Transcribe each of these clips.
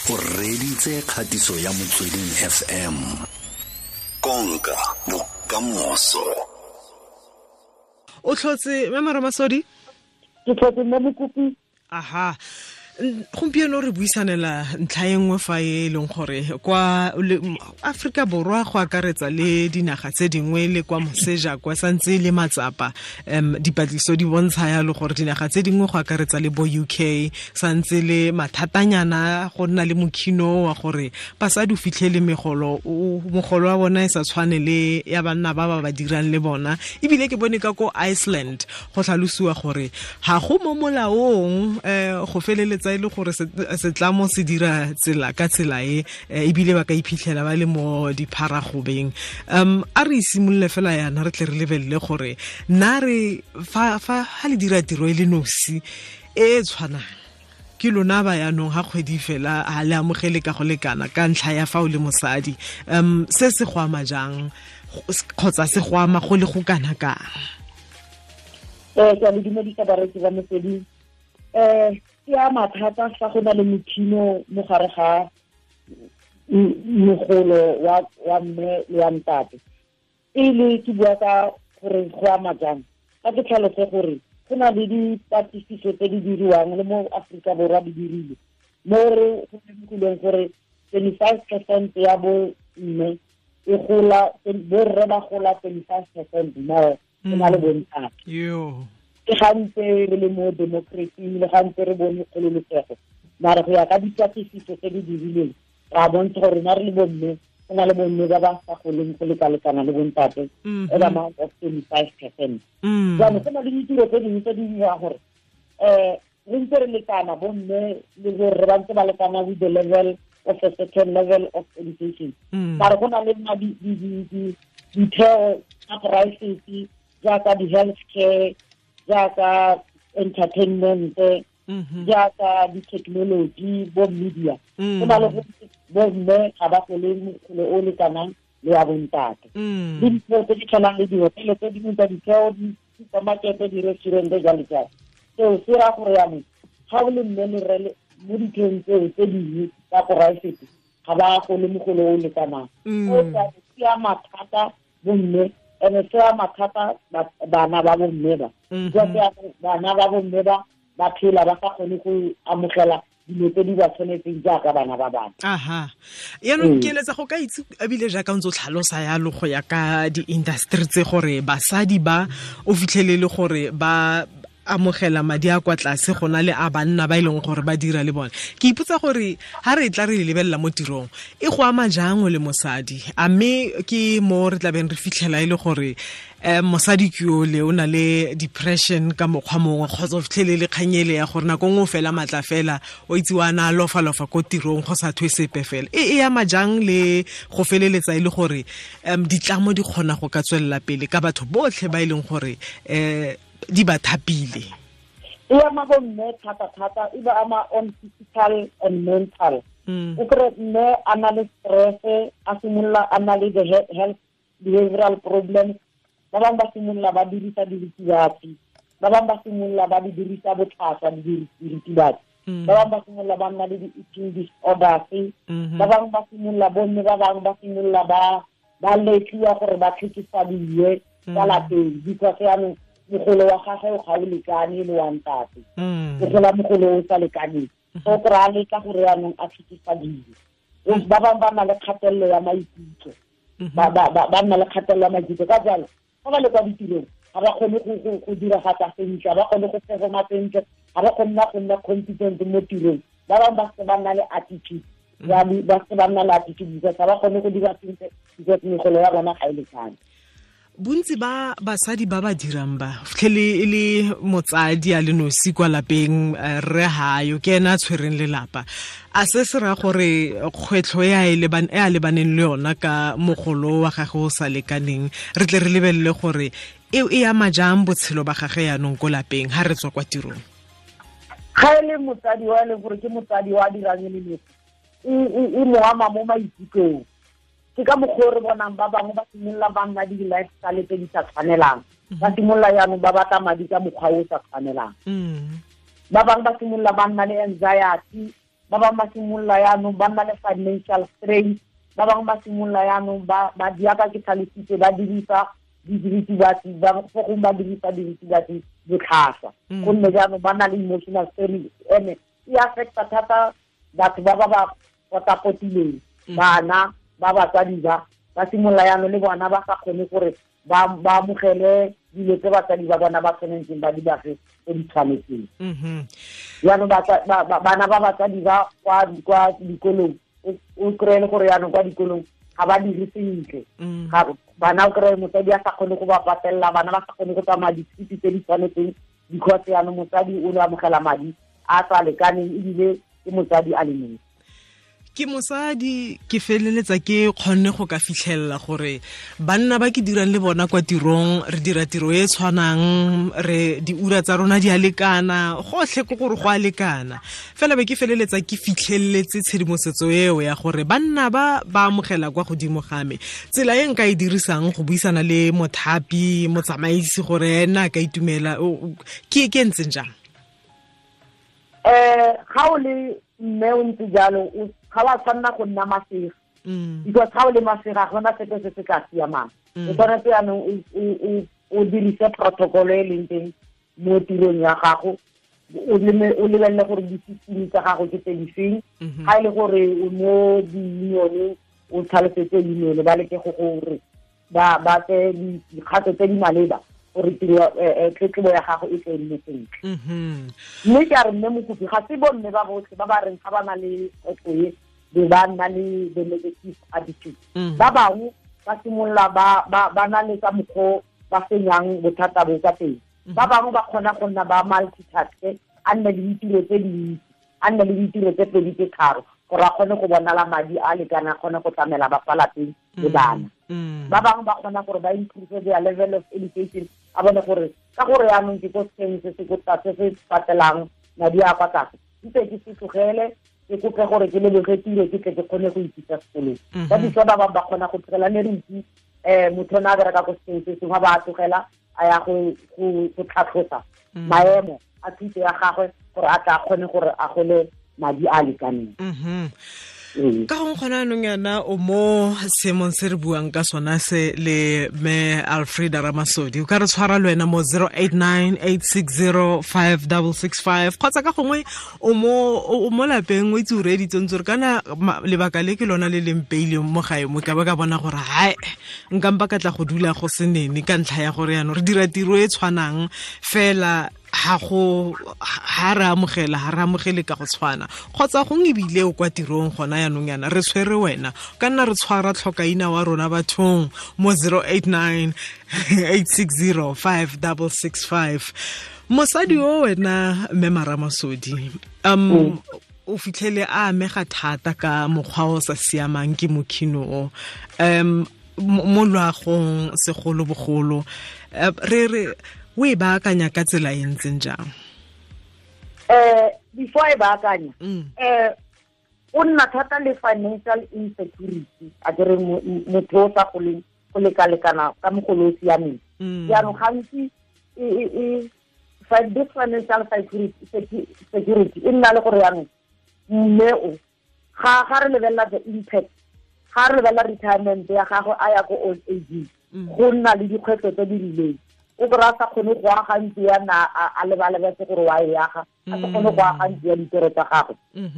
O reditse kgatiso ya Motsweding FM. Konka bokamoso. O tlhotse mme Ramasodi? Ke tlhotse mme Mokopi. Aha. Gompieno re buisanela ntlha e nngwe fa e leng gore kwa Aforika Borwa go akaretsa le dinaga tse dingwe le kwa moseja kwa santse le matsapa. Dipatlisiso di bontsha yalo gore dinaga tse dingwe go akaretsa le bo UK santse le mathatanyana go nna le mokhino wa gore basadi o fitlhele megolo wa bona e sa tshwane le ya banna ba ba dirang le bona. Ebile ke bone ka ko Iceland go tlhalosiwa gore ga go mo molaong go feleletsa e le gore setlamo se dira tsela ka tsela e ebile ba ka iphitlhela ba le mo dipharagobeng. A re simolole fela yana re tle re lebelele gore nna re fa ha le dira tiro e le nosi e tshwanang ke lona ba yanong ha kgwedi fela ha le amogele ka go lekana ka ntlha ya fa o le mosadi, se se go ama jang kgotsa se go ama go le go kana kang? Ke a le dumedisa bareetsi ba Motsweding. Ke a mathata fa go na le mokhino mo gare ga mogolo wa mme le wa ntate. Pele ke bua ka gore go ama jang, ka ke tlhalose gore go na le dipatlisiso tse di diriwang le mo Aforika Borwa di dirile mo re go lemogileng gore 25% ya bo mme e gola, borre ba gola 25% more go na le bontate. Ke gantse re le mo democracy le gantse re bone kgololosego, mare go ya ka dipatlisiso tse di dirileng ra bontsha gore rona re le bomme go na le bomme ba ba sa goleng go lekalekana le bontate at amount of 25%. Jaanong go na le ditiro tse dingwe tse di dirang gore re ntse re lekana bomme le borre ba ntse ba lekana with the level of a certain level of education, mare go na le ditheo tsa poraefete jaaka di-health care, jaaka entertainment, jaaka di-technology, bo media. Go na le bomme ga ba gole mogolo o lekanang le wa bontate. Le ditheo tse di tshwanang le dihotele tse dingwe tsa ditheo, di-supermarket, di-restaurant jalo jalo. Seo se raya gore jaanong ga o le mme le rre mo ditheong tseo tse dingwe tsa poraefete ga ba gole mogolo o lekanang. O se ama thata bomme, ene se ama thata bana ba bomme ba. Bana ba bomme ba ba phela ba sa kgone go amogela dilo tse di ba tshwanetseng jaaka bana ba bangwe. Aha. Yaanong ke eletsa go ka itse ebile jaaka ntse o tlhalosa yalo go ya ka di-industry tse gore basadi ba o fitlhelele gore ba amogela madi a kwa tlase go na le a banna ba e leng gore ba dira le bone. Ke ipotsa gore ha re tla re lebelela mo tirong e go ama jang o le mosadi, a mme ke mo re tlabeng re fitlhela e le gore mosadi ke ole o na le depression ka mokgwa mongwe kgotsa o fitlhelele kganyele ya gore nako nngwe o fela matla fela o itse wa na lofa-lofa ko tirong go sa thwe sepe fela. E ama jang le go feleletsa e le gore ditlamo di kgona go ka tswelela pele ka batho botlhe ba e leng gore di ba thapile? E ama bomme thata-thata, e ba ama on physical and mental. O kry mme a na le stress, a simolola a na le the health behavioral problems. Ba bangwe ba simolola ba dirisa diritibatsi, ba bangwe ba simolola ba di dirisa botlhaswa diritibatsi, ba bangwe ba simolola ba nna le di-eating disorders, ba bangwe ba simolola bomme ba bangwe ba simolola ba letliwa gore ba tlhekefadiwe ka lapeng because yaanong mogolo wa gagwe o ga o lekane le wa ntate, o gola mogolo o sa lekaneng, so kry-a letla gore yaanong a tlhekefadiwe. Ba bangwe ba nna le kgatelelo ya maikutlo, ba nna le kgatelelo ya maikutlo, ka jalo fa ba le kwa ditirong ga ba kgone go diragatsa sentle, ga ba kgone go performa sentle, ga ba kgone go nna competent mo tirong. Ba bangwe ba se ba nna le attitude, ba se ba nna le attitude because ga ba kgone go dira sentle because megolo ya bona ga e lekane. Bontsi ba basadi ba ba dirang ba fitlhele e le motsadi a le nosi kwa lapeng, rre hayo ke ena a tshwereng lelapa. A se se raya gore kgwetlho e a lebaneng le yona ka mogolo wa gagwe o sa lekaneng re tle re lebelele gore e ama jang botshelo ba gagwe yanong ko lapeng ha re tswa kwa tirong? Ga e le motsadi wa e leng gore ke motsadi wa dirang e le nosi, e mo ama mo maikutlong. Ke ka mokgwa o re bonang ba bangwe ba simolola ba nna di-lifestyle tse di sa tshwanelang, ba simolola jaanong ba batla madi ka mokgwa o sa tshwanelang. Ba bangwe ba simolola ba nna le anxiety, Ba bangwe ba simolola yaanong ba nna le financial strain. Ba bangwe ba simolola yaanong ba diaka ke tlhalositse ba dirisa diritibatsi, ba fo gongwe ba dirisa diritibatsi botlhaswa, gonne jaanong ba na le emotional strain. Ene e affecta thata batho ba ba ba potapotileng, bana ba batsadi ba simolola yaanong le bona ba sa kgone gore ba amogele dilo tse batsadi ba bona ba tshwanetseng ba di bafe tse di tshwanetseng. Jaanong bana ba batsadi ba kwa dikolong, o kry-e le gore jaanong kwa dikolong ga ba dire sentle. Bana o kry-e motsadi a sa kgone go ba patelela, bana ba sa kgone go tsamaya dithuti tse di tshwanetseng, because jaanong motsadi o ne amogela madi a sa lekaneng, ebile ke motsadi a le mongwe. Ke mosadi, ke feleletsa ke kgonne go ka fitlhelela gore banna ba ke dirang le bona kwa tirong, re dira tiro e tshwanang, re diura tsa rona di a lekana, gotlhe ke gore go a lekana. Fela be ke feleletsa ke fitlheletse tshedimosetso eo ya gore banna ba ba amogela kwa godimo ga me. Tsela e nka e dirisang go buisana le mothapi, motsamaisi, gore ena a ka itumela, ke e ntseng jang? Ga o le mme o ntse jalo, ga wa tshwanna go nna masega, because ga o le masega ga gona sepe se se tla siamang. O tshwanetse jaanong o dirise protocol e leng teng mo tirong ya gago, o lebelele gore di-system tsa gago ke tse di feng. Ga e le gore o mo di-unioneng, o tlhalosetse union, ba leke go gore ba tseye dikgato tse di maleba gore tiro tletlebo ya gago e tle nne sentle. Mme ke a re mme Mokopi, ga se bomme ba botlhe ba ba reng ga ba na le kgwetlho e be ba nna le the negative attitude. Ba bangwe ba simolola ba na le ka mokgwa ba fenyang bothata bo ka teng. Ba bangwe ba kgona go nna ba multitask, a nne le ditiro tse dintsi, a nne le ditiro tse pedi tse tharo, gore a kgone go bonala madi a lekana, a kgone go tlamela ba fa lapeng le bana. Ba bangwe ba kgona gore ba improve their level of education, a bone gore ka gore yaanong ke ko sekeng se se ko tlase se patelang madi a kwa tlase, ntse ke se tlogele, ke kope gore ke leboge tiro, ke tle ke kgone go ithuta sekolong. Ba ditso ba bangwe ba kgona go tlogela, ne re itse motho o ne a bereka ko sekeng se sengwe, ba a tlogela a ya go tlhatlhosa maemo a thuto ya gagwe gore a tla kgone gore a gole madi a lekaneng. Ka gongwe gona anong yana o mo seemong se re buang ka sona se le me Alfreda Ramasodi, o ka re tshwara le wena mo 089 860 5665, kgotsa ka gongwe o mo lapeng o itse o reeditse ntse re kana lebaka le ke lona le leng peileng mo gae mo, ka ba ka bona gore hae nka mpa ka tla go dula go se nene ka ntlha ya gore yaanong re dira tiro e tshwanang fela ha re amogela, ha re amogele ka go tshwana, kgotsa gongwe ebile o kwa tirong gona yaanong yana re tshwere wena, ka nna re tshwara tlhokaina wa rona bathong mo 089 860 5665. Mosadi o wena mme Ramasodi, o fitlhele a amega thata ka mokgwa o sa siamang ke mokhino o, mo loagong segolobogolo, re o e baakanya ka tsela e ntseng jang? Before e baakanya, o nna thata le financial insecurity, a ke re motho o sa goleng go lekalekana ka mogolo o siameng. Jaanong gantsi this financial security e nna le gore jaanong mme o ga re lebelela the impact, ga re lebelela retirement ya gagwe a ya ko old age, go nna le dikgwetlho tse di rileng. O kry-a sa kgone go aga ntlo ya na a lebalebetse gore wa e aga, a sa kgone go aga ntlo ya ditoro tsa gagwe,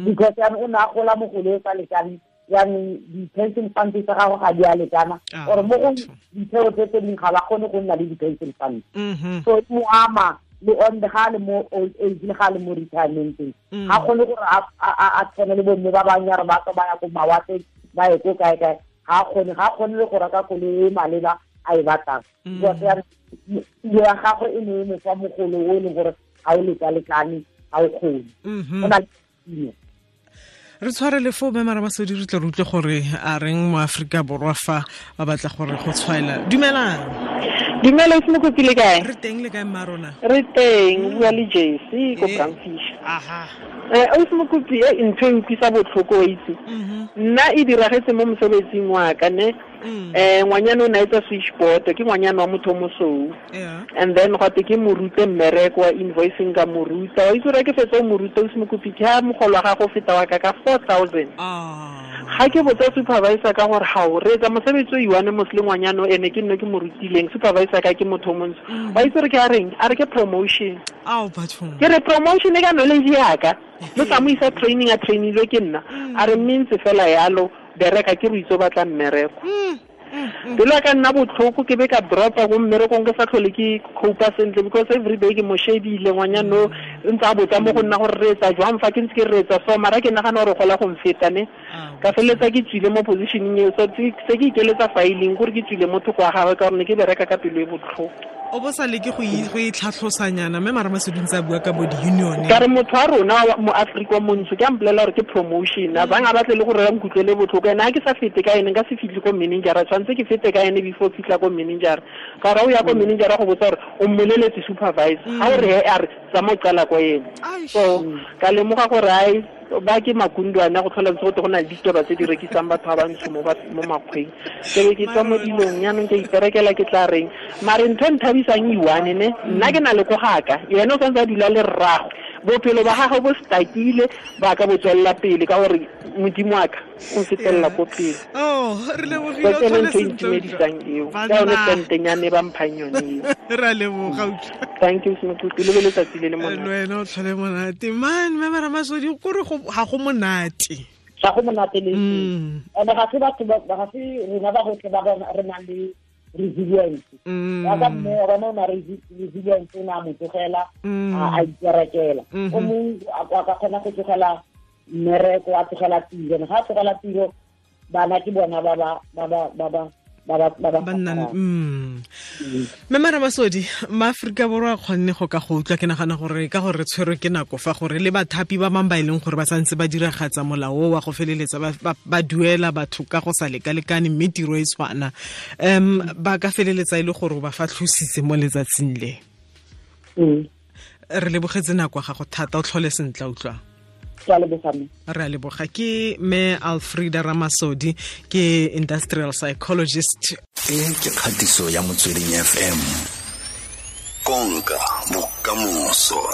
because jaanong o ne a gola mogolo o sa lekane, jaanong di-pension fund tsa gagwe ga di a lekana, or mo go ditheo tse tse dingwe ga ba kgone go nna le di-pension fund. So e mo ama le on ga le mo old age le ga le mo retirementeng, ga kgone gore a tshwane le bomme ba bangwe ya re ba tswa ba ya ko mawatleng, ba ye ko kae-kae, ga kgone le go reka koloi e maleba a e batlang, because tiro ya gagwe e ne e mo fa mogolo o e leng gore ga o lekalekane, ga o kgone. Go na le re tshware le fo mme Ramasodi, re tle re utlwe gore a reng mo Aforika Borwa fa ba batla gore go tshwaela. Dumelang. Dumela, o Mokopi, le kae? Re teng, le kae mma rona? Re teng, o bua le Jesse ko Bramfish. Aha. Ausi Mokopi e ntho e utlwisa botlhoko itse. Nna e diragetse mo mosebetsing wa ka ne. Ngwanyana o ne a etsa switchboard, ke ngwanyana wa motho o mosweu. And then gwa te ke mo rute mmereko wa invoicing ka mo ruta. Wa itse gore ke fetsa o mo ruta ausi Mokopi ke ha mogolo wa gago feta wa ka ka 4,000. Ga ke botsa supervisor ka gore ga o reetsa mosebetsi o iwane mos le ngwanyana o ene ke nne ke mo rutileng, supervisor ka ke motho o montsho. Wa itse gore ke a reng? A re ke promotion. Ke re promotion e ka knowledge yaka. Le sa mo isa training a trainilwe ke nna. A re mme ntse fela yalo bereka ke re itse o batla mmereko. Pelo ya ka nna botlhoko ke be ka dropa ko mmerekong ke sa tlhole ke copa sentle because every day ke mo shebile ngwanyana o ntse a botsa mo go nna gore re etsa jwang fa ke ntse ke re etsa so mara ke nagana gore gola go mfeta ne. Ka feleletsa ke tswile mo positioning eo, so se ke ikeletsa filing gore ke tswile mo thoko wa gagwe ka gore ne ke bereka ka pelo e botlhoko. O bo sa leke go itlhatlhosanyana mme mara Masodi ntse a bua ka bo di-union. Ka re motho wa rona mo Afrika montsho ke a mpolelela gore ke promotion, a bang a batle le gore ba nkutlwele botlhoko. Ene ha ke sa fete ka ene nka se fitlhe ko manager, tshwanetse ke fete ka ene before fitlha ko manager. Ka gore o ya ko manager go botsa gore o mmoleletse supervisor, ha o re he a re tsamaya o qala ko ene. So ka lemoga gore ai ba ke makundwana go tlhola ntse go te go na le ditaba tse di rekisang batho ba bantsho mo makgweng. Ke be ke tswa mo dilong jaanong ke iperekela ke tla reng. Mare ntho e nthabisang iwane ne, nna ke na le ko gaka, yena o santse a dula le rragwe. Bophelo ba gagwe bo stakile ba ka bo tswelela pele ka gore Modimo wa ka o nfetelela ko pele. Oh, re lebogile o tlhole sentle. Itumedisang eo. Ka yone tentenyane ba mphang yone eo. Re a leboga utlwa. Thank you Mokopi, le be letsatsi le le monate. Le wena o tlhole monate. Man, mme Ramasodi kore ga go monate. Ga go monate le. Ene ga se batho ba ga se rena ba gotlhe ba re nang le resilience. Ya ka mme wa bona o na resilience o ne a mo tlogela a iperekela. O mongwe a ka kgona go tlogela mmereko, a tlogela tiro. Ga a tlogela tiro bana ke bona ba ba ba Mme Ramasodi, maAforika Borwa a kgonne go ka go utlwa, ke nagana gore ka gore re tshwerwe ke nako fa gore le bathapi ba bangwe ba e leng gore ba santse ba diragatsa molao wa go feleletsa ba duela batho ka go sa lekalekane mme tiro e tshwana, ba ka feleletsa e le gore ba fa tlhositse mo letsatsing le. Re lebogetse nako ya gago thata, o tlhole sentle utlwa. Re a leboga. Ke mme Alfreda Ramasodi, ke industrial psychologist. E ke kgatiso ya Motsweding FM. Konka bokamoso.